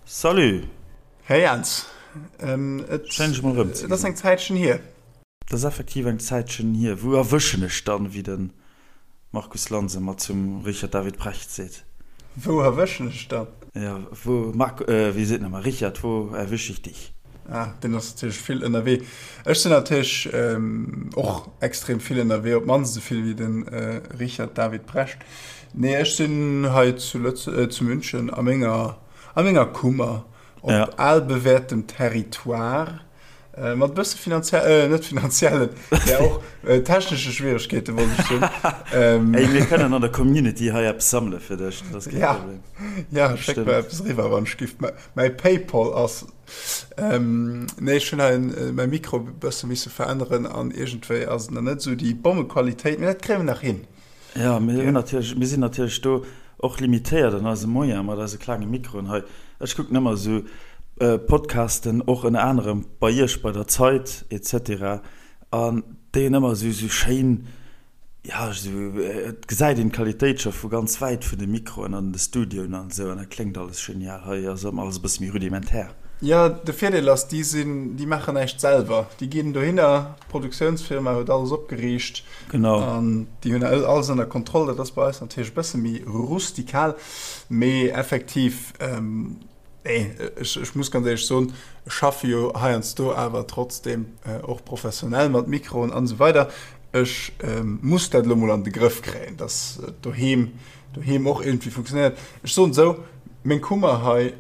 Salut! Hey Jens, et Schéin dech mol erëm ze ass eng Zäitchen hier. Et ass effektiv eng Zäitchen hier. Wou erwëschen ech dann, wéi de Markus Lanz ëmmer zum Richard David Precht seet? Wou erwëschen ech dann? Jo, wou, Marc, wéi seet en ëmmer, Richard, wo erwisch ich dich? Ah, deen ass natierlech vill ënnerwee. Ech sinn natierlech och extrem vill ënnerwee, op d'mannst esou vill wéi de Richard David Precht. Nee, ech sinn hei zu Lëtze, zu München a menger, a menger Kummer, op albewäertem Territoire, mat e bësse finanziell, net finanziellen, mä och technesche Schwieregkeete wollt ech soen. Ey, mir kënnen an der Community hei eppes sammele fir dech, dat ass kee Problem. Ja, schéck mer eppes eriwwer, wann ech giff. Mäi Paypal ass. Nee, ech hunn hei mäi Mikro e bësse misse veränneren an iergendwéi ass et nach net esou déi Bommequalitéit, mee dat kréie mer nach hin. Jo, mir hunn natierlech, mir sinn natierlech do och limitéiert an eise Moyen mat eise klenge Mikroen hei. Ech kucken ëmmer esou Podcasten, och ënner anerem bei Iech bei der Zeit et cetera, an déi hunn ëmmer esou esou schéin, jo, esou, et gesäit een d'Qualitéit scho vu ganz wäit vun de Mikroen an de Studioen an esou, an dat kléngt alles genial. Hei ass ëmmer alles e bësse méi rudimentär. Jo, de Virdeel ass, déi sinn, déi maachen näischt selwer. Déi ginn dohinner, d'Produktiounsfirma huet alles opgeriicht. Genau. An déi hunn alles ënner Kontroll. Dat ass bei eis natierlech e bësse méi rustikal, mee effektiv, nee, ech, ech muss ganz éierlech soen, ech schaffe jo heiansdo awer trotzdeem och professionell mat Mikroen an esou weider. Ech muss dat elo mol an de Grëff kréien, dass et doheem, doheem och iergendwéi funktionéiert. Ech soen esou, meng Kummer hei,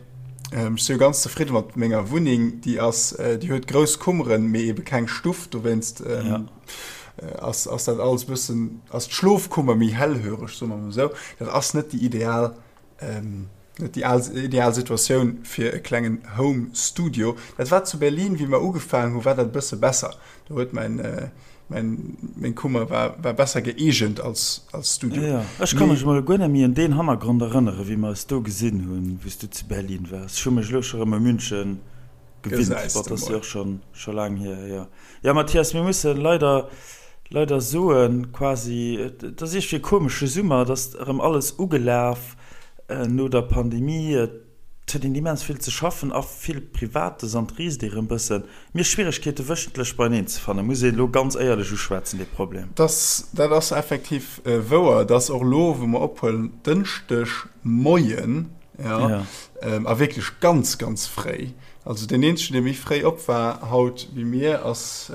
ech si jo ganz zefridde mat menger Wunneng, déi ass, déi huet grouss Kummeren, mee ebe keng Stuff, dowéinst, ass ass dat alles bëssen, ass d'Schlofkummer méi hellhöreg, soe mer mol esou. Dat ass net déi ideal, net déi ideal Situatioun fir e klengen Home Studio. Dat war zu Berlin, wéi mer ugefaangen hu, war dat e bësse besser. Do huet mäin, mäin, meng Kummer war, war besser gëeegent als, als Studio. Jo, ech ka mech emol guer net méi un deen Hannergrond erënneren, wéi mer eis do gesinn hunn, wéi s du zu Berlin waars. Ech hu mech elo scho rëm u München gewinnt. Gesäis Bon, de dat ass jo mol. och schonn, scho laang hier, jo. Jo Mathias, mir mussen leider, leider soen, quasi, et ass iergendwéi e komesche Summer, et ass erëm alles ugelaf no der Pandemie, et huet een immens vill ze schaffen a vill Privates an et riisst ee rëm bëssen. Mir Schwieregkeete wëchentlech beieneen ze fannen, muss een elo ganz éierlech uschwätzen, dee Problem. Dass, dat ass effektiv wouer. Et ass och elo, wou mer ophuelen, Dënschdeg Moien, jo, a wierklech ganz, ganz fréi. Also deen eenzegen dee méi fréi op war haut wéi mir ass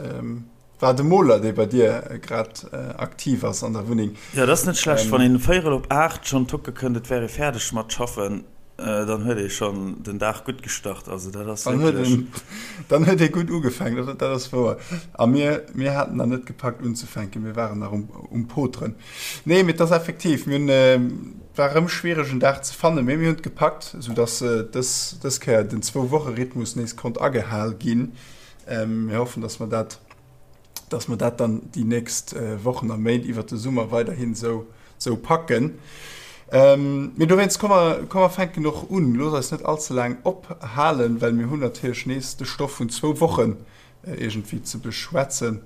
war de Moler dee bei dir grad aktiv ass an der Wunneng. Jo dat ass net schlecht, wann een véierel op 8 schonn tucke kënnt et wär ee fäerdeg mat schaffen, dann huet ee schonn den Dag gutt gestart. Also dat ass wierklech. Dann huet ee gutt ugefaangen, dat ass wouer. A mir mir haten nach net gepackt unzefänken, mir waren nach um Poteren. Nee, mee et ass effektiv, mir hunn, war erëm schwiereg en Dag ze fannen, mee mir hunn et gepackt, esou dass dës, dës Kéier den Zwou-Woche-Rhythmus nees konnt agehal ginn. Mir hoffen, dass mer dat, dass mer dat dann déi nächst Wochen a Méint iwwert de Summer weiderhin esou, esou packen. Mee dowéinst, komm mer, komm mer fänken och un. Looss eis net all ze laang ophalen, well mir hunn natierlech nees de Stoff vun zwou Wochen iergendwéi ze beschwätzen.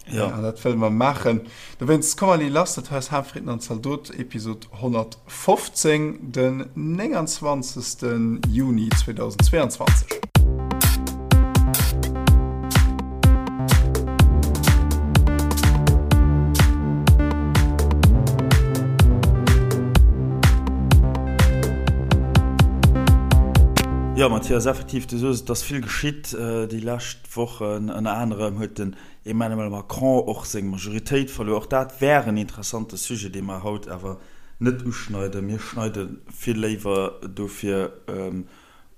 Ja. An dat wëlle mer maachen. Dowéinst, komm allez lass, dat hei ass Haanfritten an Zaldot, Episod 115, den 29. Juni 2022. Jo, Mathias, effektiv, du soos et, et ass vill geschitt déi lescht Wochen. Ënner anerem huet den Emmanuel Macron och seng Majoritéit verluer. Och dat wär en interessante Sujet, dee mer haut awer net uschneiden. Mir schneide vill léiwer dofir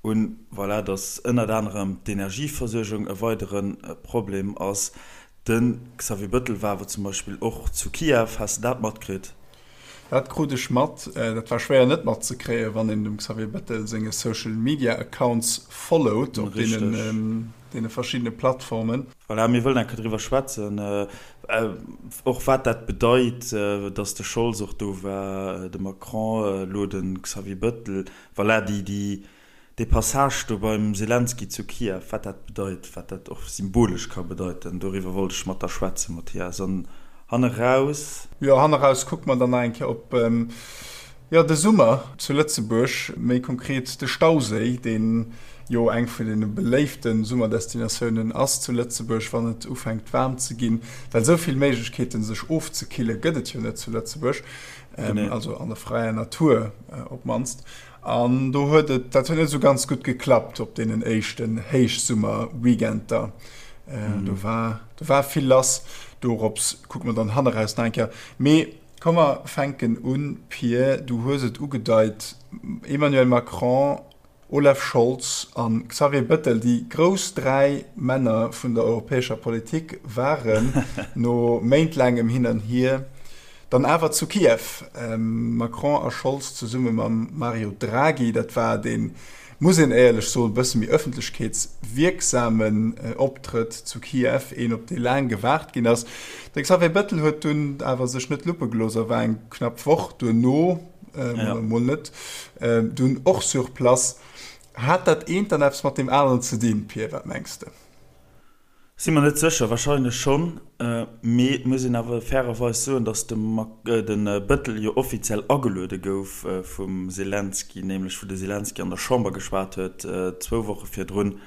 un, voilà, datt ënnert anerem d'Energieversuergung e weidere Problem ass. De Xavier Bëttel war awer zum Beispill och zu Kiew. Has de dat matkritt? Dat krut ech mat. Dat war schwéier net matzekréien, wann een dem Xavier Bettel senge Social Media Accounts followt op deene verschiddene Plattformen. Voilà, mir wëllen eng Kéier driwwer schwätzen, och wat dat bedeit, datt de Scholz och do war, de Macron, elo de Xavier Bettel. Voilà, déi Dee Passage do beim Selenskyj zu Kiew, wat dat bedeit, wat dat och symbolesch ka bedeiten, doriwwer wollt ech mat der schwätzen, Mathias. An hanneraus. Jo, hanneraus kucke mer dann nach eng Kéier op. Jo, de Summer zu Lëtzebuerg, méi konkret de Stauséi, deen jo eng vun deene beléifte Summerdestinatiounen ass zu Lëtzebuerg, wann et ufänkt waarm ze ginn, well esou vill Méiglechkeeten sech ofzekille gëtt et jo net zu Lëtzebuerg, also an der fräier Natur op d'mannst. An do huet et, dat huet net esou ganz gutt geklappt op deenen éischten Héichsummerweekender. Do war, do war vill lass. Dorops kucke mer dann hanneraus nach eng Kéier. Mee Komm mer fänken un, Pir, du hues et ugedeit, Emmanuel Macron, Olaf Scholz a Xavier Bettel, déi grouss 3 Männer vun der europäescher Politik waren no méintlaangem Hin an Hier dann awer zu Kiew. Macron a Scholz zesumme mam Mario Draghi, dat war dee muss een éierlech soen, e bësse méi ëffentlechkeetswierksamen Optrëtt zu Kiew, een op dee laang gewaart ginn ass. De Xavier Bettel huet dunn awer sech net luppe gelooss a war eng knapp Woch duerno, oder mol net, dunn och sur place. Hat dat eent dann eppes mat deem aneren ze dinn, Pir, wat mengs de? Si mer net sécher, wahrscheinlech schonn, mee et muss een awer fairerweis soen, datt de Bettel jo offiziell ageluede gouf vum Selenskyj, nämlech wou de Selenskyj an der Chamber geschwat huet zwou Woche virdrun.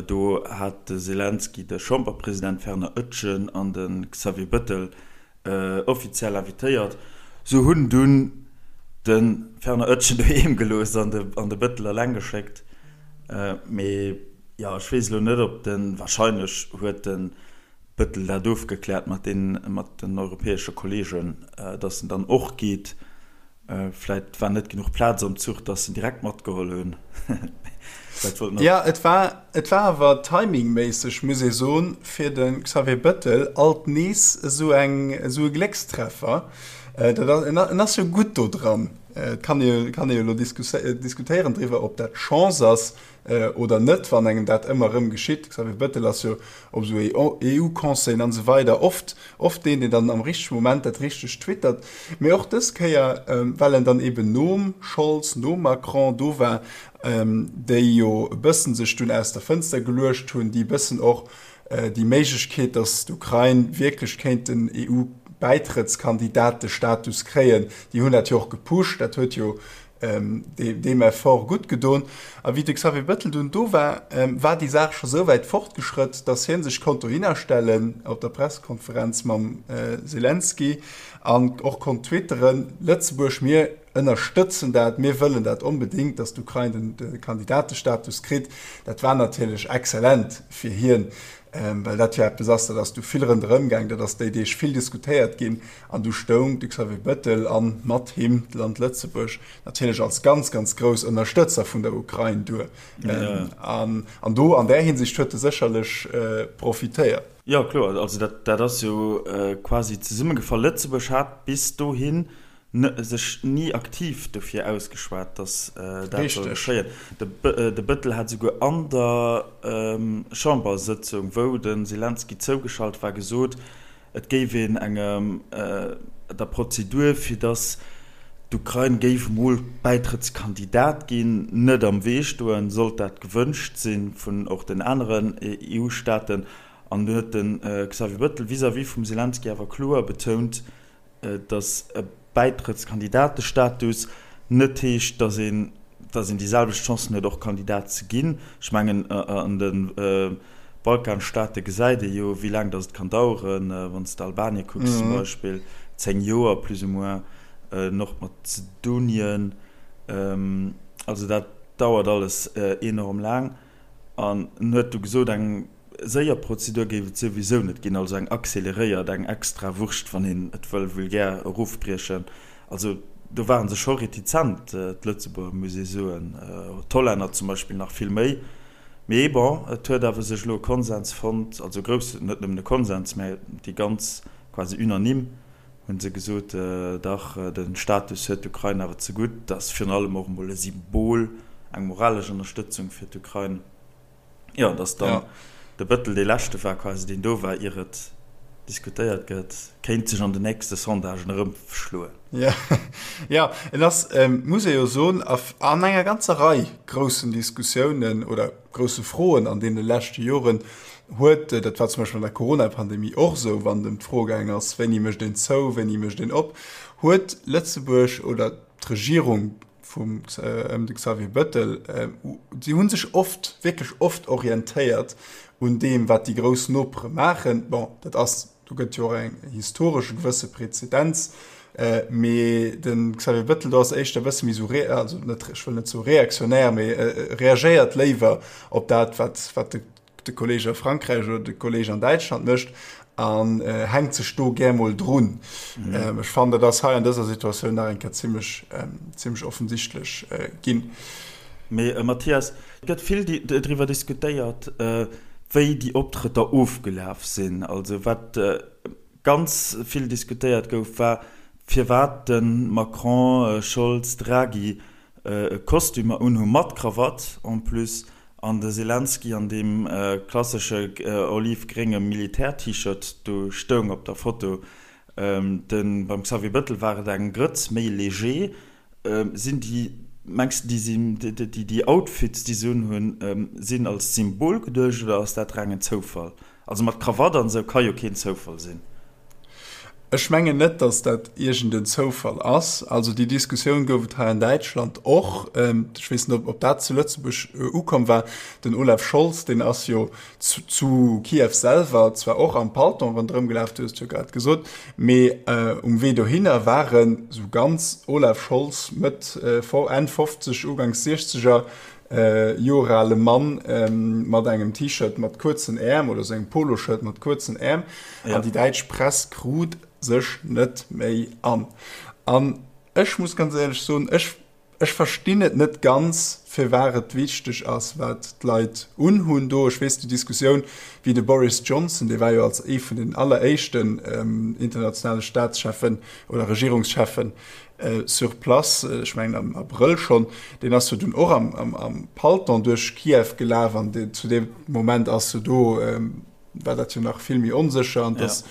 Do hat de Selenskyj de Chamberpresident Werner Oetjen an de Xavier Bettel offiziell invitéiert. Sou hunn dunn de Werner Oetjen doheem gelooss an de Bettel eleng geschéckt. Mee jo, ech weess elo net, ob den, wahrscheinlech huet de Bëttel dat ofgekläert mat den, mat den europäesche Kollegen, datt en dann och geet. Vläit war net genuch Plaz am Zuch, datt en direkt matgeholl hunn. Vläit wollt en och. Jo, et war, et war awer timingméisseg, muss ee soen, fir de Xavier Bëttel alt nees esou eng, esou e Gléckstreffer. Dat ass, en, en ass jo gutt do dran. Et kann ee kann ee jo elo diskutéieren driwwer, ob dat Chance ass oder net, wann engem dat ëmmer erëm geschitt. Xavier Bettel ass jo op esou EU-Conseillen an esou weider oft oft deen, deen dann am richtege Moment dat Richtegt twittert. Mee och dës Kéier, well en dann eben nom Scholz, nom Macron do war, déi jo e bëssen sech dunn aus der Fënster geluecht hunn, déi e bëssen och déi Méiglechkeet, datt d'Ukrain wierklech kéint den EU-Bäitrëttskandidatestatus kréien, déi hunn dat jo och gepusht, dat huet jo deem Effort gutt gedon. A wéi de Xavier Bettel dunn do war, war déi Saach scho sou wäit fortgeschrëtt, datt hie sech konnt dohinner stellen op der Pressekonferenz mam Selenskyj an och konnt twitteren, Lëtzebuerg, mir ënnerstëtzen dat, mir wëllen dat onbedéngt, datt d'Ukrain de Kandidatestatus kritt. Dat war natierlech exzellent fir hien, well dat jo eppes ass, dat ass du vill ronderëm gaang, dat ass déi Deeg vill diskutéiert ginn an du stoung de Xavier Bettel a mat him d'Land Lëtzebuerg natierlech als ganz, ganz grouss Ënnerstëtzer vun der Ukrain duer. An do an där Hinsicht huet e sécherlech profitéiert. Jo, kloer. Also dat ass jo quasi zesummegefall. Lëtzebuerg hat bis dohin sech ni aktiv dofir ausgeschwat, datt dat soll geschéien. De Bëttel hat esouguer an der Chambersëtzung, wou de Selenskyj zougeschalt war, gesot, et géif een engem der Prozedur, fir datt d'Ukrain géif emol Bäitrëttskandidat ginn, net am Wee stoen, sollt dat gewënscht si vun och den aneren EU-Staaten. An dunn huet de Xavier Bëttel vis-à-vis vum Selenskyj awer kloer betount, datt e Bäitrëttskandidatestatus net heescht, datt een, datt een déi selwecht Chancen huet och Kandidat ze ginn. Ech mengen an de Balkanstaate gesäit ee jo wéi laang datt et kann daueren, wann s de Albanien kucks zum Beispill, 10 Joer plus ou moins, Nordmazedonien, also dat dauert alles enorm laang. An en huet du gesot, eng séier Prozedur géif et souwisou net ginn, also eng acceleréiert, eng extra Wurscht, wann een et wëll vulgär erofbriechen. Also do ware se scho retizent, d'Lëtzebuerger, muss ee soen, d'Hollänner zum Beispill nach vill méi. Mee bon, et huet awer sech elo e Konsens fonnt, also e groussen, net nëmmen e Konsens, mä déi ganz quasi unanime hu se gesot, dach, de Status huet d'Ukrain awer zegutt. Dat ass virun allem och emol e Symbol, eng moralesch Ënnerstëtzung fir d'Ukrain. Jo, dass dann de Bëttel dee leschte war quasi, deen do war, ier et diskutéiert gëtt, kéint sech an den nächste Sondagen erëmschloen. Jo, et ass, muss ee jo soen, an enger ganzer Rei groussen Diskussiounen oder grousse Froen an deene leschte Joren huet, dat war zum Beispill an der Corona-Pandemie och esou, wann et ëm d'Fro gaang ass, wéini mécht een zou, wéini mécht een op, huet Lëtzebuerg oder. d'Regierung vum ëm de Xavier Bëttel, si hu sech oft, wierklech oft orientéiert un deem, wat déi grouss Nopere maachen. Bon, dat ass, do gëtt jo och eng historesch e gewësse Präzedenz, mee de Xavier Bëttel do ass éischter e bësse méi esou, also net, ech wëll net soe reaktionär, mee reagéiert léiwer op dat, wat, wat de de Kolleg a Frankräich oder de Kolleg an Däitschland mécht an hänkt sech do gär mol drun. Mhm. Ech fannen, dat ass hei an dëser Situatioun nach eng Kéier zimmlech, zimmlech offensichtlech ginn. Mee Mathias, et gëtt vill driwwer diskutéiert, wéi déi Optrëtter ofgelaf sinn. Also wat ganz vill diskutéiert gouf, war, firwat de Macron, Scholz, Draghi Kostümer unhu mat Krawatt en plus an de Selenskyj an deem klassesche olivgrénge Militär-T-Shirt do stoung op der Foto. De beim Xavier Bëttel war et eng Grëtz méi léger. Sinn déi, mengs de, déi sinn, déi Outfits déi se unhunn, sinn als Symbol geduecht oder ass dat rengen Zoufall? Also mat Krawatt an esou ka jo keen Zoufall sinn. Ech mengen net, datt dat iergend en Zoufall ass. Also déi Diskussioun gouf et hei an Däitschland och. Ech weess net, ob dat zu Lëtzebuerg ukomm war. Den Olaf Scholz, deen ass jo zu Kiew selwer zwar och am Palton ronderëm gelaf, du hues et jo grad gesot, mee um Wee dohinner war en esou ganz Olaf Scholz, Mëtt, Enn 50, Uganks Siechzeger, Joer ale Mann mat engem T-Shirt mat kuerzen Äerm oder sou engem Poloshirt mat kuerzen Äerm an déi däitsch Press krut sech net méi an. An ech muss ganz éierlech soen, ech ech verstinn et net ganz, firwat et wichteg ass, wat d'Leit unhunn do. Ech weess déi Diskussioun, wéi de Boris Johnson, dee war jo als ee vun den alleréischten internationale Staatscheffen oder Regierungscheffen Sur place, ech mengen am Abrëll schonn, deen ass jo dunn och am Palton duerch Kiew gelaf an zu deem Moment ass jo do, war dat jo nach vill méi onsécher an et ass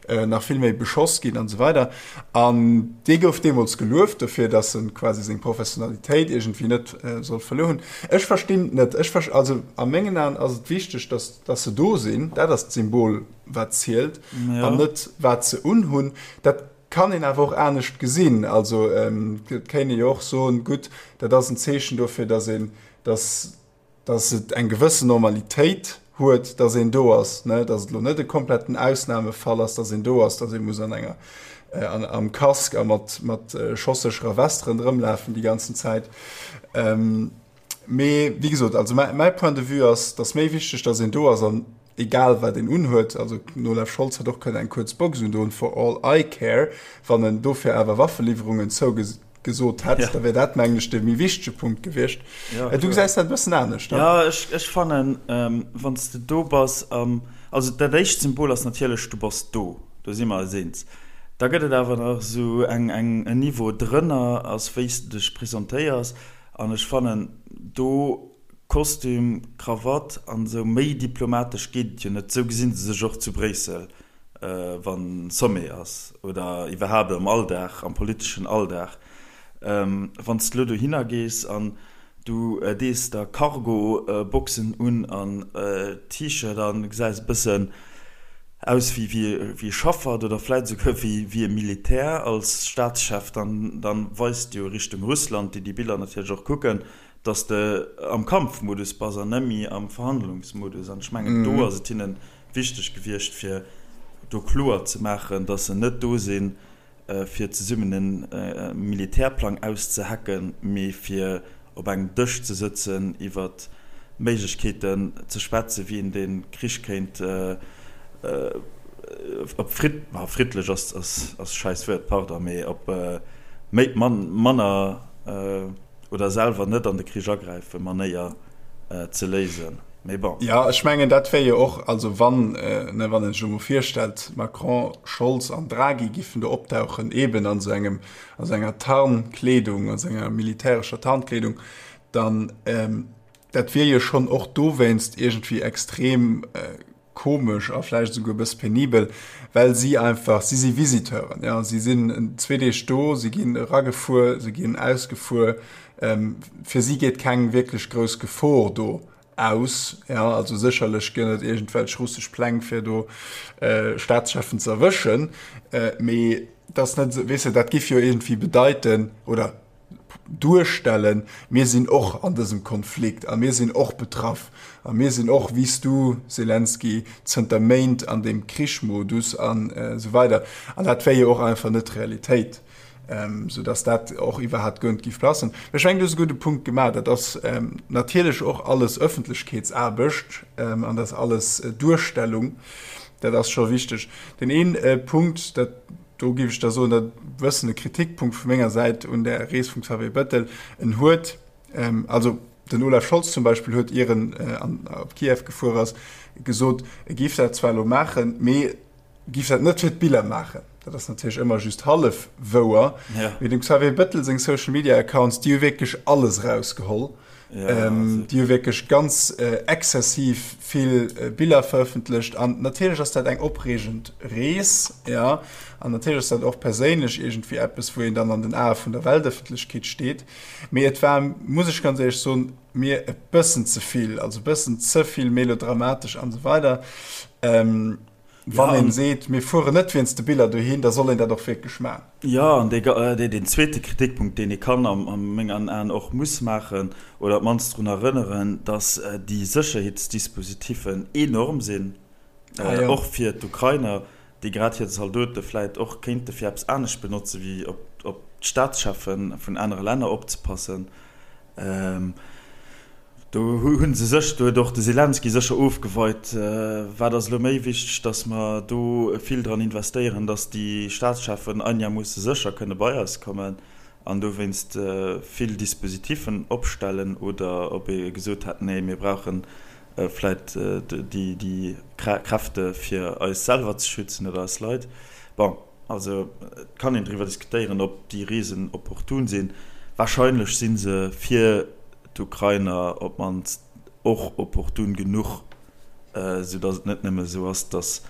nach vill méi beschoss ginn an esou weider. An dee gouf deemools gelueft dofir, datt e quasi seng Professionalitéit iergendwéi net soll verluer hunn. Ech verstinn et net. Ech, also a mengen Aen ass et wichteg, datt, datt se do sinn. Dat ass d'Symbol, wat zielt an net wat se unhunn. Dat Kann een awer och anescht gesinn. Also et kéint ee jo och soen, gutt, dat ass en Zeechen dofir, datt een, datt, datt et eng gewëssen Normalitéit huet, datt een do ass, ne, datt et elo net e kompletten Ausnamefall ass, datt een do ass, datt ee muss an enger, an, am Casque a mat, mat schossécherer Vest ronderëmlafen déi ganzen Zäit. Mee wéi gesot, also mäi Point de vue ass, et ass méi wichteg, datt een do ass an egal wat een unhuet. Also den Olaf Scholz hätt och kënnen eng kuerz Box undoen, for all I care. Wann en dofir awer Waffeliwwerungen zougesot hätt, da wär dat, mengen ech, de méi wichtege Punkt gewiescht. Du gesäis dat e bëssen anescht, ne? Jo, ech fannen, wann s de do bass, also dat éischt Symbol ass natierlech, du bass do, do si mer eis eens. Da gëtt et awer nach esou eng, en Niveau drënner, ass wéi s de dech presentéiers. An ech fannen do Kostüm, Krawatt an esou, méi diplomatesch geet et jo net. Esou gesinn se sech och zu Bréissel, wann Sommet ass oder iwwerhaapt am Alldag, am politeschen Alldag. Wann s de elo dohinner gees an du dees der Cargo-Boxen un an T-Shirt an gesäis e bëssen aus wéi wéi e Schaffert oder vläit esouguer wéi wéi e Militär als Staatschef, dann dann weist jo Richtung Russland, déi déi Biller natierlech och kucken, datt s de am Kampfmodus bass an net méi am Verhandlungsmodus. An ech mengen, do ass et hinne wichteg gewiescht, fir do kloer ze maachen, datt se net do sinn, fir zesummen e Militärplang auszehacken, mee fir op engem Dësch ze sëtzen, iwwer Méiglechkeeten ze schwätzen, wéi een dee Krich kéint op fridd, friddlech ass schäiss Wuert, pardon, mee op méi manner oder selwer net an de Krich agräifen Manéier ze léisen. Mee bon. Jo, ech mengen, dat wär jo och, also wann, ne, wann een sech elo mol virstellt, Macron, Scholz an Draghi giffen do optauchen, eeben an esou engem, a sou enger Tarnkleedung, a sou enger militärescher Tarnkleedung, dann, dat wier jo schonn och dowéinst iergendwéi extrem komesch a vläicht esouguer e bësse penibel, well si einfach, si si Visiteuren, ja, si sinn zwee Deeg do, si ginn eragefuer, si ginn ausgefuer, fir si geet keng wierklech grouss Gefor do aus, ja, also sécherlech gëtt et iergendwelch russesch Pläng fir do Staatscheffen ze erwëschen, mee et ass net esou, weess de, dat giff jo iergendwéi bedeiten, oder. duerstellen, mir sinn och an dësem Konflikt a mir sinn och betraff a mir sinn och, wéi s du, Selenskyj, zënter Méint an deem Krichmodus an esou weider. An dat wär jo och einfach net d'Realitéit, soudass dat och iwwerhaapt guer net géif passen. Ech mengen, du hues e gudde Punkt gemaach. Dat ass natierlech och alles Ëffentlechkeetsaarbecht an dat ass alles Duerstellung. Dat ass scho wichteg. Deen een Punkt, dat, do géif ech da soen, dat e bëssen e Kritikpunkt vu menger Säit un där Rees vum Xavier Bettel, en huet, also den Olaf Scholz zum Beispill huet, ier en op Kiew gefuer ass, gesot, e géif dat zwar elo maachen, mee géif dat net fir d'Biller maachen. Dat ass natierlech ëmmer just hallef wouer. Mee dem Xavier Bettel seng Social Media Accounts, déi hu wierklech alles erausgeholl. Déi hu wierklech ganz exzessiv vill Biller verëffentlecht. An natierlech ass dat eng opreegend Rees, jo. An natierlech ass dat och perséinlech iergendwéi eppes, wou een dann an den Ae vun der Weltëffentlechkeet steet. Mee et war, muss ech ganz éierlech soen, mir e bëssen ze vill, also e bëssen ze vill melodramatesch an esou weider. Wann een seet, mir fueren net wéinst de Biller dohin, da soll een dat och wierklech maachen. Jo, an deen zweete Kritikpunkt, deen ee kann a mengen Aen och muss maachen, oder op d'mannst drun erënneren, datt déi Sécherheetsdispositiffen enorm sinn, och fir d'Ukrainer, déi grad hir Zaldote vläit och kéinte fir eppes anescht benotze wéi op d'Staatscheffe vun anere Länner opzepassen. Do hu se sech, do huet och de Selenskyj sécher ofgeweit, wat ass elo méi wichteg, datt mer do vill dran investéieren, datt déi Staatscheffen einermoosse sécher kënne bei eis kommen an dowéinst vill Dispositiffen opstellen, oder ob ee gesot hätt, nee mir brauche vläit déi Kräfte fir eis selwer ze schützen oder eis Leit. Bon. Also et kann een driwwer diskutéieren, ob déi Reesen opportun sinn. Warscheinlech si se fir d'Ukrainer op d'mannst och opportun genuch, soudatt et net nëmme esou ass, datt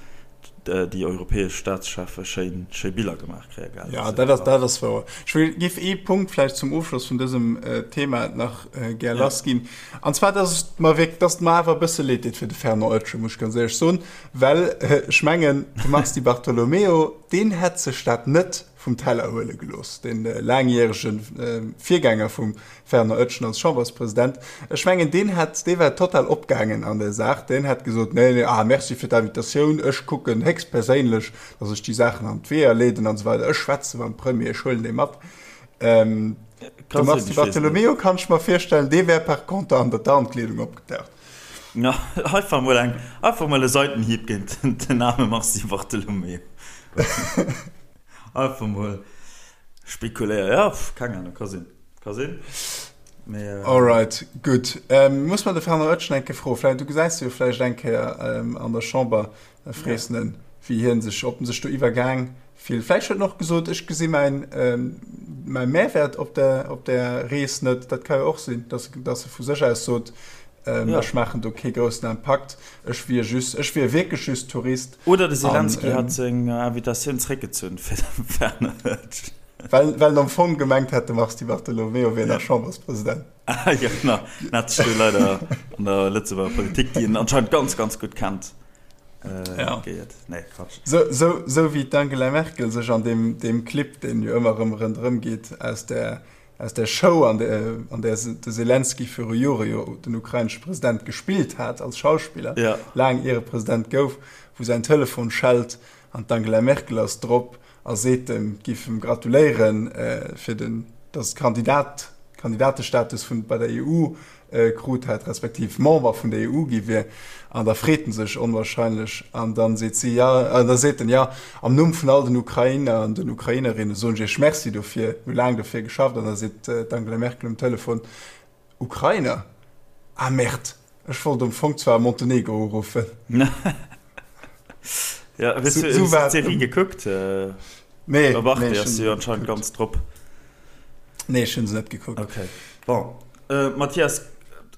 déi europäesch Staatscheffe schéin schéi Biller gemaach kréie gell. Jo, dat ass, dat ass wouer. Ech wëll, géif ee Punkt vläicht zum Ofschloss vun dësem Thema nach gär lassginn, an zwar, datt et mer wierk, datt et mer awer e bësse leed deet fir de Fernand Oetsch, muss ech ganz éierlech soen. Well ech mengen, de Mars Di Bartolomeo, deen hätt sech dat net vum Teller huele gelooss, dee laangjärege Virgänger vum Fernand Oetschen als Chamberspresident. Ech mengen, deen hätt, dee wär total opgaangen an där Saach. Deen hätt gesot, Nee, nee, ah, merci fir d'Invitatioun, ech kucken héchstperséinlech, datt ech déi Saachen an d'Weeër leeden an esou weider, ech schwätze mam Premier, ech huelen dee mat. De Mars Di Bartolomeo, kann ech mer virstellen, dee wär par contre an der Tarnkleedung opgetaucht. Ja, einfach mol eng, einfach mol e Seitenhieb géint den arme Mars Di Bartolomeo. Einfach mol spekuléieren. Ja, keng Ahnung, ka sinn, ka sinn. Mee, äh, Alright, gutt. Ähm, muss mer de Fernand Oetschen eng Kéier froen. Vläicht, du gesäis e jo vläicht eng Kéier ähm, an der Chamber, da frees en en, wéi hien sech, ob en sech do iwwergaang fillt. Vläicht huet en och gesot, ech gesi mäin, ähm, mäi Mehrwert op der, op der Rees net. Dat ka jo och sinn, dass, dass e vu sech aus sot, Ähm, ja. Ech maachen do kee groussen Impakt. Ech wier just, ech wier wierklech just Tourist. Oder de Zelensky hat seng Invitatioun zréckgezunn fir de Werner Hötsch. Well, well en am Fong gemengt hätt, de Mars Di Bartolomeo wier nach Chamberspresident. Ah, ja, genau. En hat sech do leider an der Lëtzebuerger Politik, déi en anscheinend ganz, ganz gutt kennt, äh, ja. geiert. Nee, Quatsch. So, so, so wéi d'Angela Merkel sech an deem, deem Clip, deen jo ëmmer erëm ronderëm geet, aus der Aus der Show, an där de Selenskyj viru Jore jo den ukrainesche President gespillt hat als Schauspiller, laang ier e President gouf, wou säin Telefon schellt an d'Angela Merkel ass drop a seet em, giff em gratuléieren fir den, datt Kandidat, Kandidatestatus vun bei der EU krut hätt, respektiv Member vun der EU gi wier, an da freet en sech onwahrscheinlech an dann seet si, ja, an da seet en, ja, am Numm vun all den Ukrainer an den Ukrainerinne soen ech Iech Merci dofir, mir hu laang dofir geschafft. An da seet d'Angela Merkel um Telefon, Ukrainer? Ah merde, ech wollt am Fong zwar Montenegro uruffen. Ja, hues du d'Serie gekuckt? Nee. Op Arte ass se jo anscheinend ganz drop. Nee, ech hunn se net gekuckt. Okay. Bon, Mathias,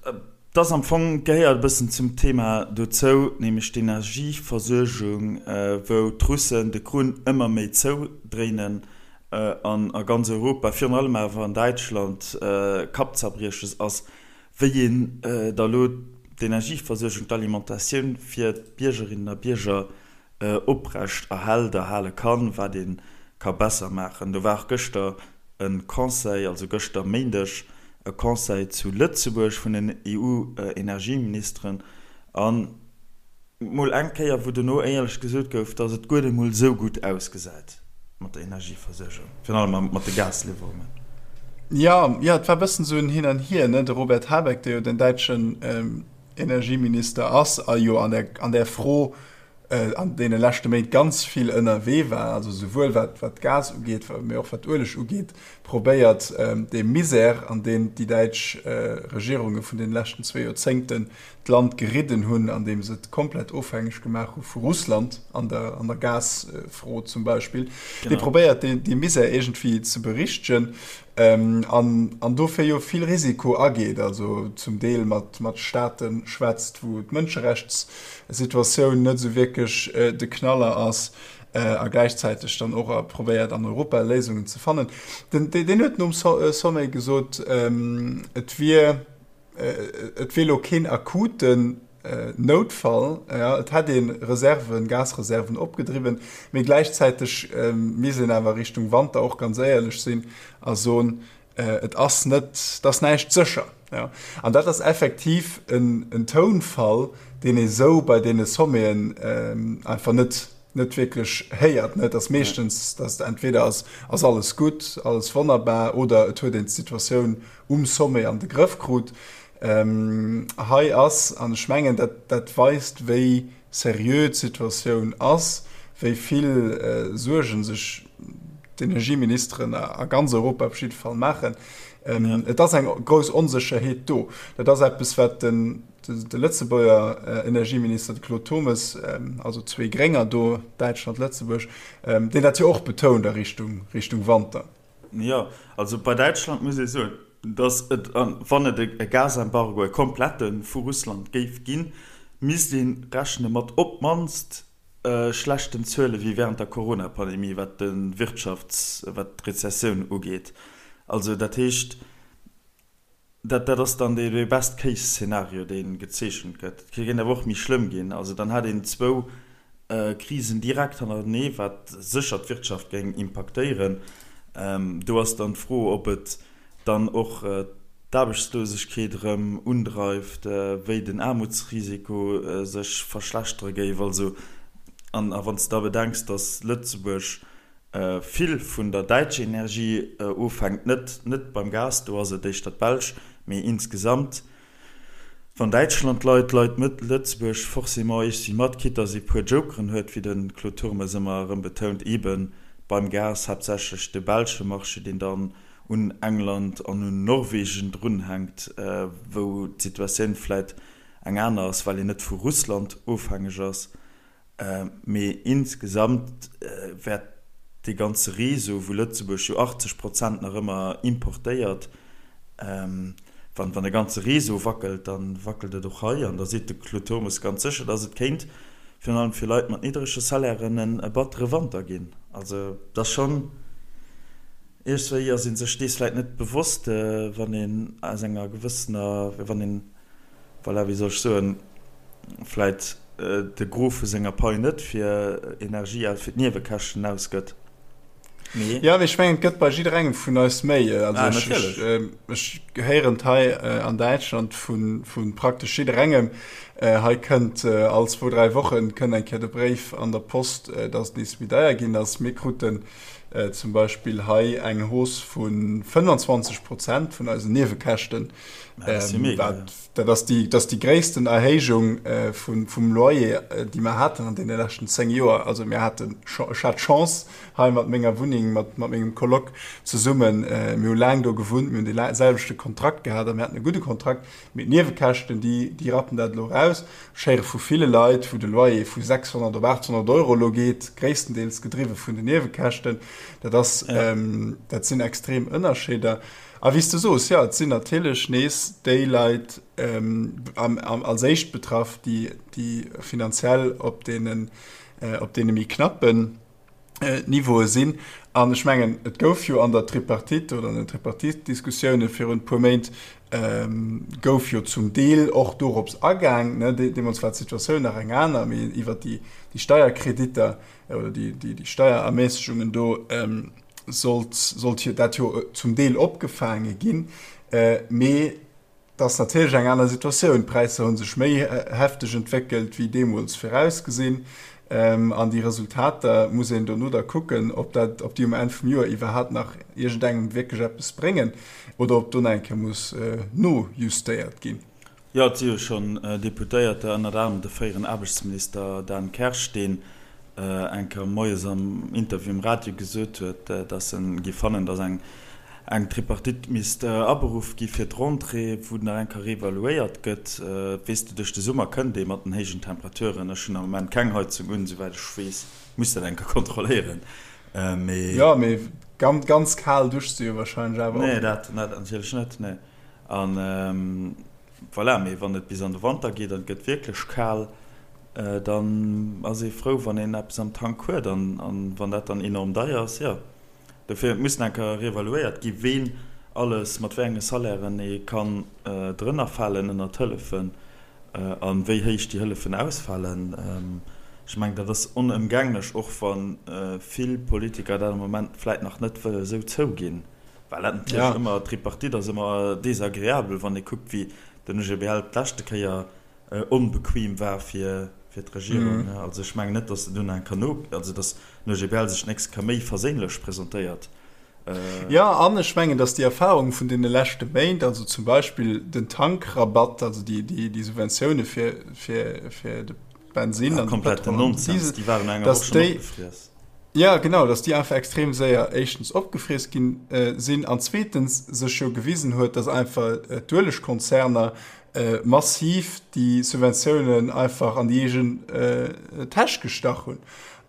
et ass am Fong, gehéiert e bëssen zum Thema dozou, nämlech d'Energieversuergung, wou d'Russen de Krunn ëmmer méi zoudréinen an a ganz Europa, virun allem awer an Däitschland, Kappzerbrieches ass, wéi een da lo d'Energieversuergung, d'Alimentatioun fir d'Biergerinnen a Bierger oprecht erhält, erhale kann, wat ee ka besser maachen. Do war och gëschter. E Conseil, also gëschter Méindeg, e Conseil zu Lëtzebuerg vun den EU-Energieministeren an mol eng Kéier, wou dono éierlech gesot gouf, datt et guer net mol esou gutt ausgesäit mat der Energieversuergung, virun allem mat de Gasliwwerungen. Jo, jo, et war e bëssen esou en Hin an Hier, ne? De Robert Habeck, dee jo den däitschen Energieminister ass a jo an där, an där Fro an deene leschte Méint ganz vill ënnerwee war, also souwuel wat wat Gas ugeet, mee och wat Ueleg ugeet, probéiert dee Misär, an deen déi däitsch Regierunge vun deene leschten zwee Joerzéngten d'Land geridden hunn, andeem se et komplett ofhängeg gemaach hu vu Russland an der an der Gasfro zum Beispill, dee probéiert dee Misär iergendwéi ze berichtegen. An dofir jo vill Risiko ageet, also zum Deel mat Staate schwätzt, wou d'Mënscherechtssituatioun net esou wierklech de Knaller ass, a gläichzäiteg dann och probéiert an Europa Léisungen ze fannen. Deen huet nom Sommet gesot, et wier, Et wier elo keen akuten Noutfall, et hätt ee Reserven, Gasreserven opgedriwwen, mee gläichzäiteg misst een awer Richtung Wanter och ganz éierlech sinn a soen, et ass net, et ass näischt sécher. An dat ass effektiv en Tounfall, deen ee sou bei deene Sommeten einfach net net wierklech héiert. Et ass meeschtens, datt entweder ass ass alles gutt, alles wonnerbar oder et huet een d'Situatioun um Sommet an de Grëff krut. Hei ass, an ech mengen dat dat weist wéi seriö d'Situatioun ass, wéi vill Suerge sech d'Energieministeren a ganz Europa op jidde Fall maachen, et ass eng grouss Onsécherheet do. Dat ass eppes wat den De Lëtzebuerger Energieminister, de Claude Turmes, also zwee Grénger do, Däitschland, Lëtzebuerg, deen dat jo och betount a Richtung, Richtung Wanter. Jo, also bei Däitschland muss ee soen, datt et, wann et e Gasembargo, e komplette vu Russland géif ginn, misst ee rechne mat op d'mannst schlechten Zuele wéi wärend der Corona-Pandemie, wat de Wirtschafts-, wat d'Rezessioun ugeet. Also dat heescht, Dat dat ass dann dee Best-Case-Szenario, dee gezeechent gëtt. Et kéint awer och méi schlëmm ginn. Also dann hätt een zwou Krisen direkt hannertenee, wat sécher d'Wirtschaft géing impaktéieren. Do ass dann d'Fro, ob et dann och d'Aarbechtslosegkeet erëm undreift, wéi den Aarmutsrisiko sech verschlechtere géif. Also, an a wann s de da bedenks, datt Lëtzebuerg vill vun der däitscher Energie ofhänkt, net net beim Gas, do ass et éischter d'Belsch, mee insgesamt, wann Däitschland leit, leit Lëtzebuerg forcément iergendwéi mat, quitte dass ee puer Jokeren huet, wéi de Claude Turmes ëmmer erëm betount, eebe beim Gas haaptsächlech de belsche Marché, deen dann un England an un Norwegen drunhänkt, wou d'Situatioun vläit eng aner ass, well een net vu Russland ofhängeg ass. Mee insgesamt wäert dee ganze Réseau, wou Lëtzebuerg jo 80 Prozent nach ëmmer importéiert, wann de ganze Réseau wackelt, da wackelt et och hei. An da seet de Claude Turmes ganz sécher, datt et kéint virun allem fir Leit mat niddrege Salairen e battere Wanter ginn. Also et ass schonn, iergswéi ass ee sech dees vläicht net bewosst, wann een aus enger gewëssener, wann een, voilà, wéi soll ech soen, vläit de Gros vu senger Pai net fir Energie, fir d'Niewekäschten ausgëtt, mee. Jo, mee ech mengen, et gëtt bei jidderengem vun eis méi. Also ah, ech, ech, ech héieren et hei an Däitschland vu, vu praktesch jidderengem. Hei kënnt all zwou, dräi Wochen kënnt eng Kéier de Bréif an der Post, dass et nees méi deier ginn ass. Mir kruten zum Beispill hei eng Hausse vu 25 Prozent vun eisen Niewekäschten. Dat ass déi, dat ass déi gréissten Erhéijung vun, vum Loyer, déi mer haten an deene leschten 10 Joer. Also mir haten, ech hat d'Chance hei mat menger Wunneng, mat, mat mengem Coloc zesummen, mir hu laang do gewunnt, mir hunn dee selwechte Kontrakt gehat a mir haten e gudde Kontrakt. Mee d'Niewekäschten, déi, déi rappen dat elo eraus. Ech héiere vu ville Leit, wou de Loyer vu 600 op 800 Euro elo geet, gréisstendeels gedriwwe vun den Niewekäschten. Dat ass, dat sinn extrem Ënnerscheeder. A wéi s de soos, jo, et sinn natierlech nees déi Leit als éischt betraff, déi finanziell op deene méi knappen Niveaue sinn. An ech mengen, et gouf jo an der Tripartite oder an den Tripartite-Diskussioune virun e puer Méint gouf jo zum Deel och dorops agaang. Deemools war d'Situatioun nach eng aner, mee iwwert déi Steierkreditter oder déi Steierermässegungen do. Sollt, sollt jo dat jo zum Deel opgefaange ginn. Mee et ass natierlech eng aner Situatioun. D'Präisser hu sech méi hefteg entwéckelt wéi deemools virausgesinn. An déi Resultater muss een dono da kucken, ob dat, ob déi um Enn vum Joer iwwerhaapt nach iergendengem wierklech eppes bréngen oder ob do nach eng Kéier muss nojustéiert ginn. Jo, et si jo schonn Deputéierter, ënnert anerem de fréieren Aarbechtsminister Dan Kersch, deen eng Kéier moies am Interview um Radio gesot huet, datt en géif fannen, datt eng eng Tripartite misst aberuff gi fir d'Rentrée, wou nach eng Kéier reevaluéiert gëtt. Weess de, duerch de Summer kënnt ee mat den héijen Temperaturen, ech hunn am Moment keng Heizung un, souwäit ech weess, muss dat eng Kéier kontrolléieren, mee. Jo, mee ganz, ganz kal duschs de jo warscheinlech awer och net. Nee, dat natierlech net, nee. An voilà, mee wann et bis an de Wanter geet an et gëtt wierklech kal, dann ass ee frou, wann een eppes am Tank huet. An wann dat dann enorm deier ass, jo. Dofir, et muss nach eng Kéier reevaluéiert gi ween alles mat wéi enge Salairen ee kann drënner falen ënnert d'Hëllefen a wéi héich déi Hëllefen ausfalen. Ech mengen, dat ass onëmgänglech, och wa vill Politiker dat am Moment vläit nach net wëlle sou zouginn. Well dat natierlech ëmmer, d'Tripartite ass ëmmer desagreabel, wann ee kuckt, wéi den OGBL d'leschte Kéier onbequem war fir d'Regierung. Also ech mengen net, datt se dunn eng Kéier no, also datt den OGBL sech d'nächst Kéier méi verséinlech presentéiert. Jo, an ech mengen, datt déi Erfahrung vun deene leschte Méint, also zum Beispill den Tankrabatt, also déi Subventioune fir de Bensinn an de Pëtrol an den Diesel, datt déi, Jo, genau, datt déi einfach extrem séier éischtens opgefriess ginn sinn an zweetens sech jo gewisen huet, datt einfach d'Uelegkonzerner massiv déi Subventiounen einfach an déi eegen Täsch gestach hunn.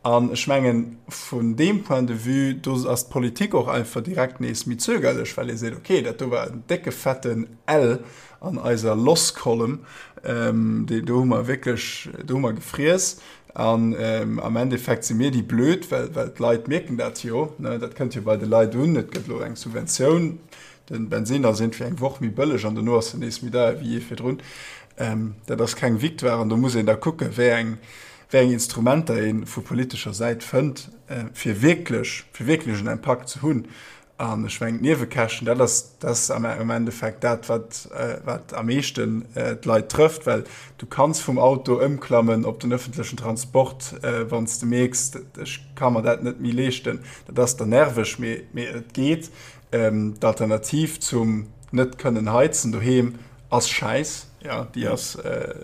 An ech mengen, vun deem Point de vue, do ass d'Politik och einfach direkt nees méi zögerlech, well ee seet, okay, dat do war en décke fetten L an eiser Loss Column, do hu mer wierklech, do hu mer gefriess. An am Endeffekt si mir déi Blöd, well d'Leit mierken dat jo, dat kënnt jo bei de Leit un, et gëtt elo eng Subventioun, de Bensinn ass iergendwéi eng Woch méi bëlleg an dono ass en nees méi deier wéi jee virdrun. Dat ass keng Victoire an do muss een da kucken, wéi eng, wéi eng Instrumenter ee vu politescher Säit fënnt, fir wierklech, fir wierklech en Impakt ze hunn. An ech mengen, d'Niewekäschten, dat ass, dat ass am Endeffekt dat, wat, wat am meeschten d'Leit trëfft, well du kanns vum Auto ëmklammen op den öffentlechen Transport, wann s de mierks, ech ka mer dat net méi leeschten. Dat ass dann nerveg, mee, mee et geet. D'Alternativ zum net kënnen heizen doheem ass Schäiss, jo, déi ass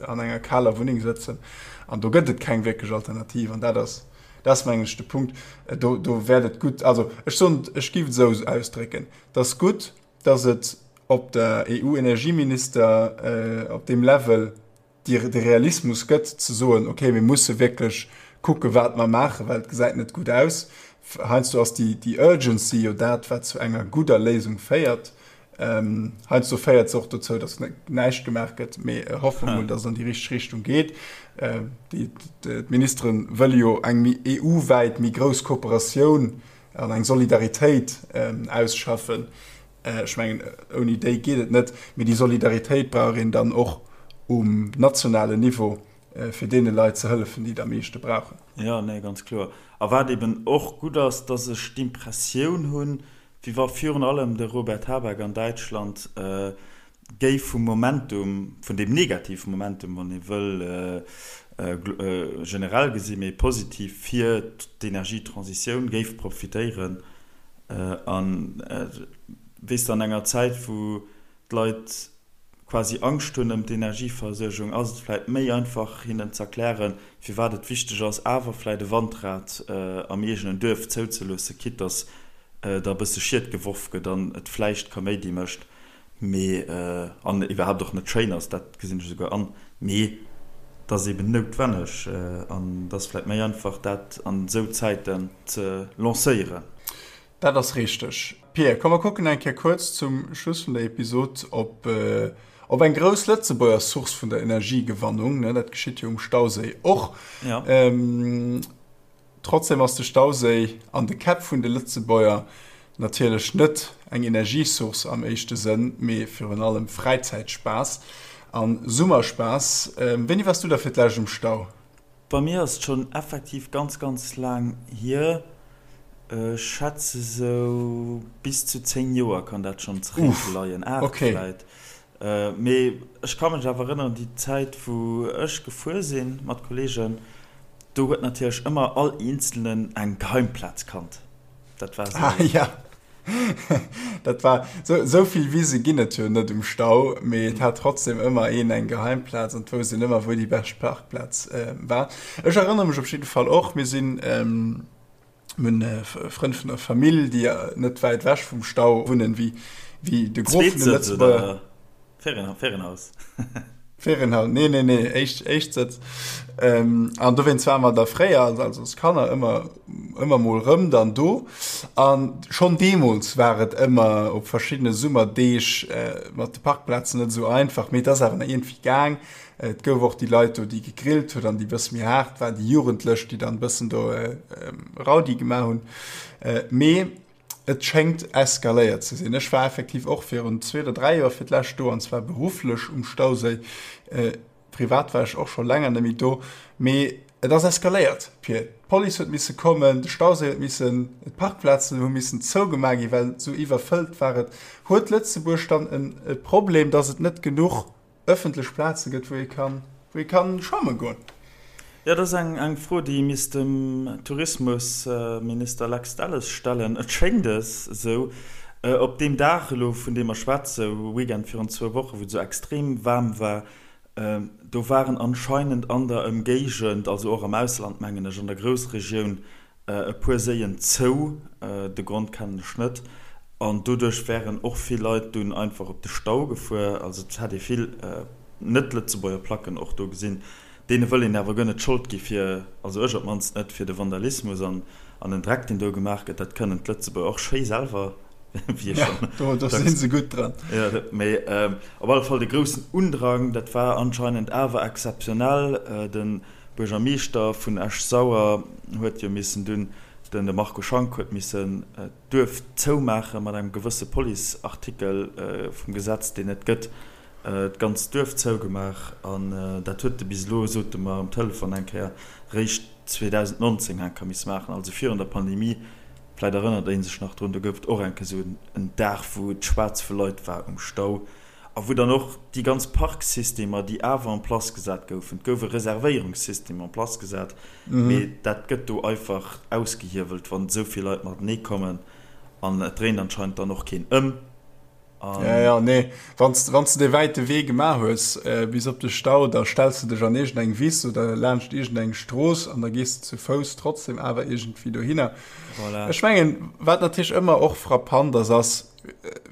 an enger kaler Wunneng sëtzen. An do gëtt et keng wierklech Alternativ. An dat ass, Dat ass, mengen ech, de Punkt. Do, do wäert et gutt, also ech soen, ech géif et esou ausdrécken, Et ass gutt, datt et op der EU-Energieminister, op deem Level déi, de Realismus gëtt, ze soen, okay, mir musse wierklech kucken, wat mer maachen, well et gesäit net gutt aus. Heiansdo ass déi, déi Urgency jo dat, wat zu enger gudder Léisung féiert. Heiansdo féiert se och dozou, datt näischt gemaach gëtt, mee hoffe mer mol, datt et an déi richteg Richtung geet. D'Ministere wëlle jo eng méi EU-wäit méi grouss Kooperatioun an eng Solidaritéit ausschaffen. Ech mengen, ouni déi geet et net, mee déi Solidaritéit brauch een dann och um nationalen Niveau, fir deene Leit ze hëllefen, déi et am meeschte brauchen. Jo, nee, ganz kloer. A wat eben och gutt ass, datt ech d'Impressioun hunn, Wéi wa virun allem de Robert Habeck an Däitschland géif vum Momentum, vun deem negative Momentum, wann ee wëll, generell gesi mee positiv fir d'Energietransitioun géif profitéieren. An, weess de, an enger Zäit, wou d'Leit quasi Angscht hunn ëm d'Energieversuergung, ass et vläit méi einfach hinnen z'erklären, firwat et wichteg ass, awer vläit e Wandrad am eegenen Duerf zouzeloossen, quitte dass da e bësse Schied geworf gëtt an et vläicht Kaméidi mécht, mee an iwwerhaapt och net schéin ass, dat gesinn ech esouguer an, mee et ass eben noutwenneg an et ass vläit méi einfach, dat an esou Zäiten ze lancéieren. Dat ass richteg. Pir, komm mer kucken eng Kéier kuerz zum Schluss vun der Episod op op eng grouss Lëtzebuerger Source vun der Energiegewannung, ne? Dat geschitt jo um Stauséi och. Ja. Trotzdem ass de Stauséi an de Käpp vun de Lëtzebuerger natierlech net eng Energiesource am éischte Sënn, mee virun allem Fräizäitspaass a Summerspaass. Wéini waars du da fir d'lescht um Stau? Bei mir ass et schonn effektiv ganz, ganz laang hier. Ech schätze sou bis zu 10 Joer kann dat schonn zeréckleien, 8 vläit. Mee ech ka mech awer erënneren, déi Zäit wou ech gefuer si mat Kolleegen, do huet natierlech ëmmer all Eenzelnen eng Geheimplaz kannt. Dat war sou. Ah ja, dat war sou, sou vill Wise ginn et jo net um Stau, mee et hat trotzdem ëmmer een eng Geheimplaz an et wousst een ëmmer wou déi bescht Parkplaz war. Ech erënnere mech op jidde Fall och, mir sinn, Mir hunn Frënn vun der Famill, déi net wäit ewech vum Stau wunnen, wéi de Gros vun de Lëtzebuerger. Ferienhaus? Ferienhaus, nee, nee, nee, éischt, Éischtsëtz. An dowéinst ware mer da fréier, also als Kanner, ëmmer, ëmmer mol rëm dann do. A schonn deemools war et ëmmer op verschiddene Summerdeeg mat de Parkplazen net esou einfach, mee et ass awer nach iergendwéi gaang. Et gouf och déi Leit do, déi gegrillt hunn an déi bësse méi haart waren, déi Jugendlech, déi dann bëssen do Raudi gemaach hunn. Mee et schéngt eskaléiert ze sinn. Ech war effektiv och virun zwee oder dräi Joer fir d'lescht do, an zwar berufflech um Stauséi. Privat war ech och scho länger net méi do. Mee et ass eskaléiert, Pir. D'Police huet misse kommen, de Stauséi huet missen, d'Parkplazen hu missen zougemaach ginn, well esou iwwerfëllt war et. Huet Lëtzebuerg dann e Problem, datt et net genuch ëffentlech Plaze gëtt, wou ee kann, wou ee kann schwamme goen? Jo, dat ass eng eng Fro, déi misst dem Tourismusminister Lex Delles stellen. Et schéngt es esou, op deem Dag elo, vun deem mer schwätze, Weekend virun zwou Wochen, wou et esou extrem waarm war, do waren anscheinend an der Ëmgéigend, also och am Ausland, mengen ech, an der Groussregioun, e puer Séien zou, de Grond kennen ech net, an doduerch wären och vill Leit dunn einfach op de Stau gefuer. Also et hätt ee vill net-Lëtzebuerger Placken och do gesinn. Deene wëll een awer guer net d'Schold gi fir, also ech op d'mannst net, fir de Vandalismus an an den Dreck deen do gemaach gëtt. Dat kënnen d'Lëtzebuerger och schéi selwer, wéi ech schonn Jo, do si se gutt dran. Jo, mee op alle Fall de groussen Undrang, dat war anscheinend awer exzeptionell. Den Buergermeeschter vun Esch-Sauer huet jo missen dunn, den de Marco Schank huet missen d'Duerf zoumaache mat engem gewësse Police-Artikel vum Gesetz, deen et gëtt, d'ganzt Duerf zougemaach. An dat huet e bis elo, sot e mer um Telefon eng Kéier, réischt 2019 eng Kéier misse maachen, also virun der Pandemie. Vläit erënnert ee sech nach drun, do gouf et och eng Kéier esou en Dag, wou et schwaarz vu Leit war um Stau. A wou dann och déi ganz Parksystemer, déi awer en place gesat goufen, et gouf e Reservéierungssystem en place gesat, mee dat gëtt do einfach ausgehiewelt, wann esou vill Leit matenee kommen an et dréint anscheinend dann och keen ëm. An. Ja, ja, nee, wann s de dee wäite Wee gemaach hues bis op de Stau, da stells de dech an iergendeng Wiss oder laanscht iergendeng Strooss an da gees de zu Fouss trotzdem awer iergendwéi dohinner. Voilà. Ech mengen, wat natierlech ëmmer och frappant ass, ass,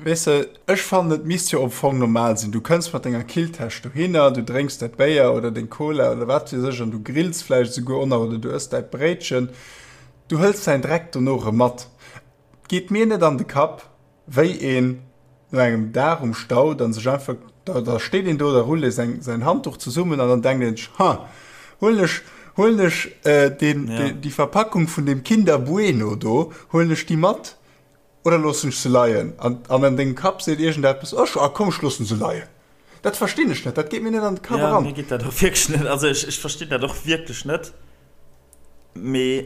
Weess de, ech fannen et misst jo am Fong normal sinn, du kënns mat denger Killtäsch dohinner, du drénks däi Béier oder deng Cola oder wat weess ech an du grills vläicht esouguer och nach oder du ëss däi Bréitchen, du hëls däin Dreck dono erëm mat. Et geet mir net an de Kapp, wéi een no engem Dag um Stau dann sech einfach, da da steet een do, da rullt ee säin säin Handduch zesummen an dann denkt een sech, ha, huelen ech huelen ech deen déi Verpackung vun deem Kinder Bueno do, huelen ech déi mat? Oder loossen ech se leien? An an dengem Kapp seet iergendeppes, Ech, ah komm, ech loossen se leien. Dat verstinn ech net, dat geet mir net an de Kapp eran. Ja, mir geet dat och wierklech net, also ech, ech verstinn dat och wierklech net, mee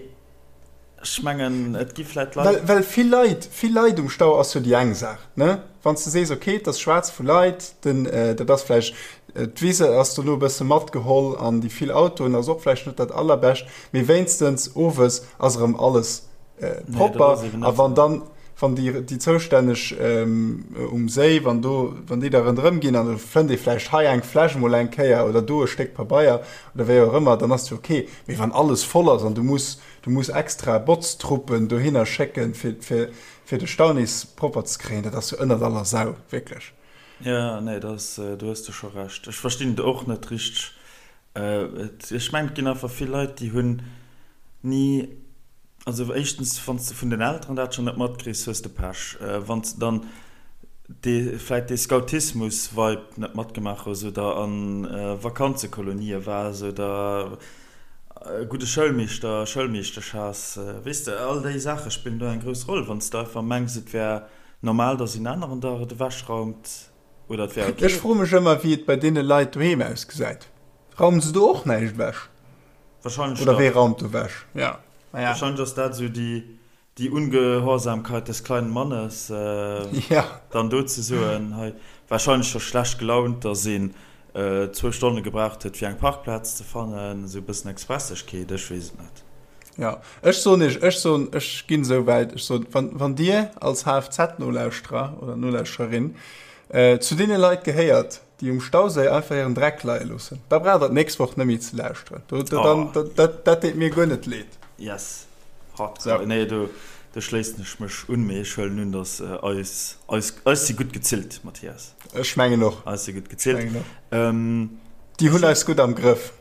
ech mengen, et gi vläit Leit. Well, well vill Leit, vill Leit um Stau ass jo déi eng Saach, ne? Wann s de sees, okay, et ass schwaarz vu Leit, den, dat ass vläicht, d'Wise ass dono e bësse matgeholl an déi vill Autoen ass och vläicht net dat allerbescht, mee wéinstens owes ass erëm alles propper. A wann dann, wann déi, déi Zoustänneg um Séi, wann do, wann déi da ronderëm ginn an da fënnt ee vläicht hei eng Fläsch mol eng Kéier oder do e Stéck Pabeier oder wéi och ëmmer, dann ass jo ok. Mee wann alles voll ass an du muss, du muss extra Botztruppen dohinner schécken, fir, fir, fir de Stau nees propper ze kréien, dat ass jo ënnert aller Sau, wierklech. Jo, nee, dat ass, do hues de scho Recht. Ech verstinn et och net richteg. Ech mengen, et ginn einfach vill Leit, déi hunn ni, also éischtens, wann s de vun den Elteren dat schonn net matkriss, hues de Pech. Wann s de dann dee vläit dee Scoutismus-Vibe net matgemaach hues oder a Vakanzekolonië waars oder e gudde Schoulmeeschter, Schoulmeeschtesch has, weess de, all déi Saache spillen do eng grouss Roll. Wann s de einfach mengs, et wär normal, datt een aneren der et ewechraumt oder et wär ok. Ech froe mech ëmmer, wéi et bei deene Leit doheem ausgesäit. Raumen se do och näischt ewech? Wahrscheinlech Oder wee raumt do ewech? Ja, naja. Wahrscheinlech ass dat esou déi. Die Ungehorsamkeit des kleinen Mannes, dann do ze soen, hei wahrscheinlech scho schlecht gelaunt, dass een zwou Stonne gebraucht huet fir eng Parkplaz ze fannen, esou e bëssen Expressegkeet, ech weess et net. Jo, ech soen iech, ech soen, ech ginn esou wäit, ech soen, wann, wann Dir als HFZ-Nolauschterer oder Nolauschtererin zu deene Leit gehéiert, déi um Stauséi einfach hiren Dreck leie loossen, da braucht Der d'nächst Woch net méi ze lauschteren. Do, do, dann, oh. dat, dat deet mir guer net leed. Yes. Hardcore. So. Nee, do, do schléissen ech mech un, mee ech huelen un, dass äh, eis, eis, eis si gutt gezillt, Mathias. Ech mengen och. Eis si gutt gezillt. Ähm, déi hunn eis gutt am Grëff.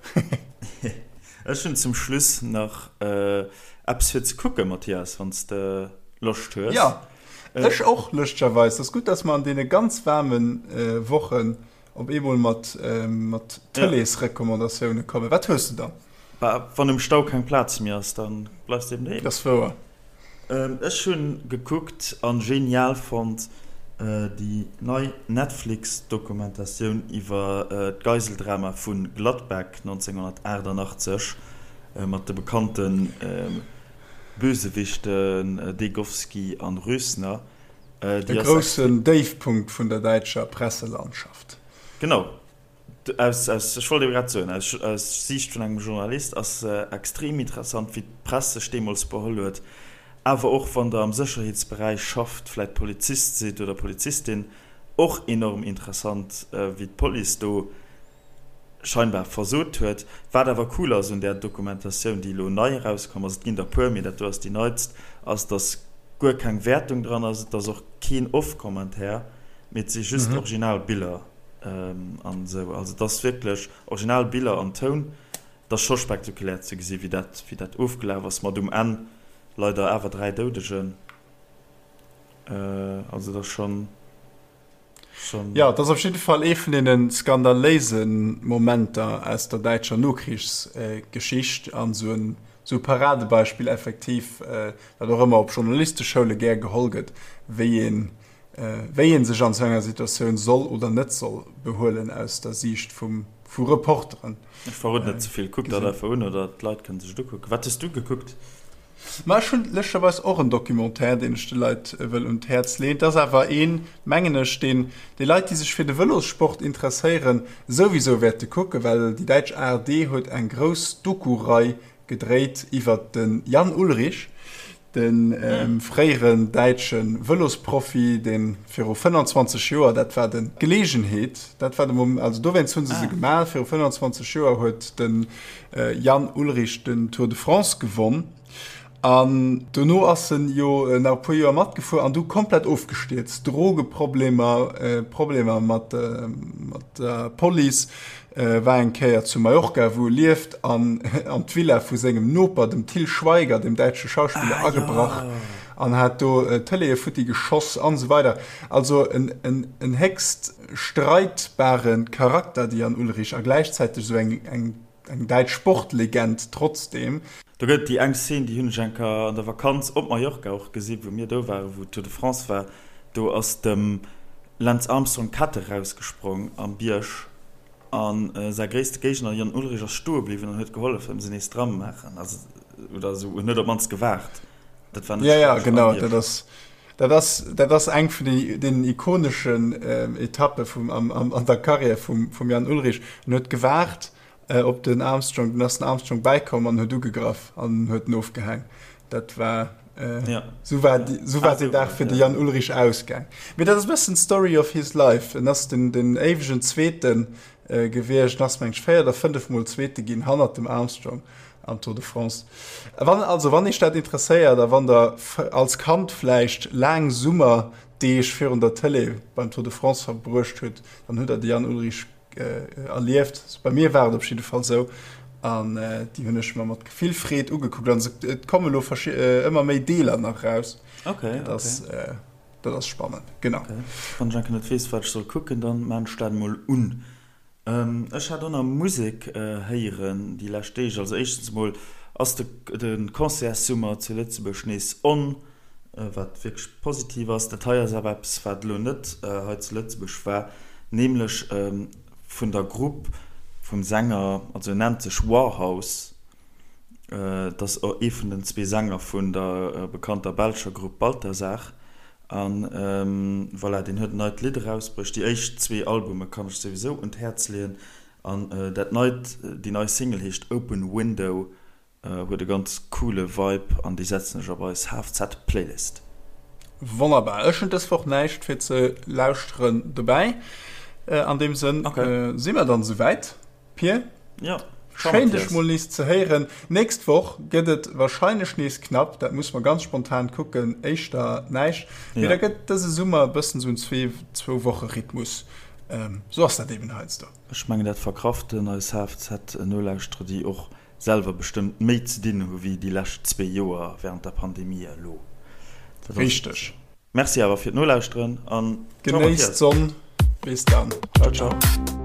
Ech hunn zum Schluss nach äh, eppes fir ze kucken, Mathias, wann s de Loscht hues. Ja. Ech och, lëschtegerweis. Et ass gutt, dass mer an deene ganz waarme Wochen op eemol mat Tëleesrecommandatioune kommen. Wat hues de dann? Bah, wann um Stau keng Plaz méi ass, da bleifs de eben doheem. Dat ass wouer. Ech hunn gekuckt an genial fonnt déi nei Netflix-Dokumentatioun iwwer d'Geiseldrama vu Gladbeck 1988 mat de bekannten Bösewichten Degowski an Rösner. E groussen Déifpunkt vun der däitscher Presselandschaft. Genau, aus, aus, ech wollt ebe grad soen, aus, aus Siicht vun engem Journalist ass se extrem interessant, wéi d'Press sech deemools beholl huet. Awer och wann der am Sécherheetsberäich schafft, vläit Polizist sidd oder Polizistin, och enorm interessant, wéi d'Police do scheinbar versot huet. Wat awer cool ass un där Dokumentatioun, déi elo nei erauskomm ass, et ginn der puer, mee dat do ass déi neitst, ass, dass guer keng Wäertung dran ass, et ass och keen Off-Commentaire, mee et si just original Biller an esou. Also et ass wierklech original Biller an Toun. Et ass scho spektakulär ze gesi wéi dat, wéi dat ofgelaf ass, mat um Enn leider awer 3 Doudegen. Also et ass schonn. Jo, et ass op jidde Fall ee vun deene skandaléise Momenter aus der däitscher Nokrichsgeschicht an esou en esou e Paradebeispill effektiv, wat och ëmmer op Journalisteschoule gär geholl gëtt, wéi een, wéi ee sech an esou enger Situatioun soll oder net soll behuelen aus der Siicht vum, vu Reporteren. Ech verroden net ze vill, kuckt dat einfach un oder d'Leit kënne sech et ukucken. Wat hues du gekuckt? Ma ech hunn lëscherweis och en Documentaire, deen ech de Leit wëll un d'Häerz leeën. Et ass awer een, mengen ech, deen déi Leit, déi sech fir de Vëlossport interesséieren, souwisou wäerte kucken, well déi däitsch ARD huet eng grouss Doku-Rei gedréit iwwert de Jan Ullrich, de fréieren däitsche Vëlosprofi, dee viru 25 Joer, dat war de Geleegenheet, dat war de Moment, also dowéinst hu se se gemaach, viru 25 Joer huet de Jan Ullrich den Tour de France gewonn an dono ass en jo nach e puer Joer matgefuer an du komplett ofgestierzt. Drogeproblemer, Problemer mat der Police, war eng Kéier zu Mallorca, wou e lieft, an an d'Villa vu sengem Noper, dem Til Schweiger, dem däitsche Schauspiller, agebrach an hat do Tëleeë futti geschoss an esou weider. Also en en héchst streitbare Charakter, de Jan Ullrich, a gläichzäiteg esou eng eng eng däitsch Sportlegend trotzdeem. Do gëtt et déi eng Szene, déi hunn ech eng Kéier an der Vakanz op Mallorca och gesi wou mir do waren, wou d'Tour de France war. Do ass dem Lance Armstrong d'Kett erausgesprong am Bierg a säi gréisste Géigner Jan Ullrich ass stoe bliwwen an huet gehollef ëm se nees dran maachen, also oder esou, en huet op d'mannst gewaart. Dat war net schlecht. Ja, ja, genau, dat ass Dat ass, dat ass eng vun deenen ikoneschen Etappe vum, am, am, an der Karriär vum, vum Jan Ullrich. En huet gewaart op den Armstrong, dunn ass den Armstrong bäikomm an huet ugegraff an huet en ofgehaang. Dat war, ja. Sou war, sou war deen Dag fir de Jan Ullrich ausgaang. Mee dat ass e bëssen d'Story of his life. En ass den, den éiwegen Zweeten gewiescht, en ass meng ech 4 oder 5 Mol Zweete ginn hannert dem Armstrong. am Tour de France. Wann also wann Iech dat interesséiert a wann der als Kand vläicht laang Summerdeeg virun der Tëlee beim Tour de France verbruecht hutt, dann hutt der de Jan Ullrich erlieft. Bei mir war et op jidde Fall sou an déi hunn ech mer mat vill Freed ugekuckt an et komme lo ëmmer méi Deeler nach raus. Okay, dat ass, okay. Dat ass spannend, genau. Okay. Wann ech enke net weess, wat ech soll kucken, dann maan ech dat emol un. Ech hat och nach Musek héieren déi lescht Deeg. Also éischtens emol ass de Concertssummer zu Lëtzebuerg nees on, wat wierklech positiv ass. Dat hei ass awer eppes, wat elo net hei zu Lëtzebuerg war, nämlech vun der Grupp vum Sänger, also en nennt sech Warhouse. Et ass ee vun den zwee Sänger vun der bekannter belscher Grupp Balthazar. An voilà, deen huet en neit Lidd erausbruecht. Déi éischt zwee Albume kann ech souwisou un d'Häerz leeën. An dat neit, déi nei Single heescht Open Window, huet e ganz coole Vibe an déi setzen ech op eis HFZ-Playlist. Wonnerbar. Ech hunn dës Woch näischt fir ze lauschteren dobäi. An deem Sënn si mer dann esouwäit. Pir, Jo, ciao schéin dech Mathias. mol nees ze héieren. Nächst Woch gëtt et wahrscheinlech nees knapp, dat muss mer ganz spontan kucken, éischter näischt, mee da Ja. gëtt dëse Summer e bëssen esou en zwee zwou Woche Rhythmus. Esou ass dat eben heiansdo. Ech mengen dat verkraften eis HFZ-Nolauschterer, déi och selwer bestëmmt méi ze dinn hu wéi déi lescht zwee Joer während der Pandemie elo. Dat ass et. Richteg. Merci awer fir d'Nolauschteren an ciao Genéisst Mathias. d'Sonn. Bis dann. Ciao ciao.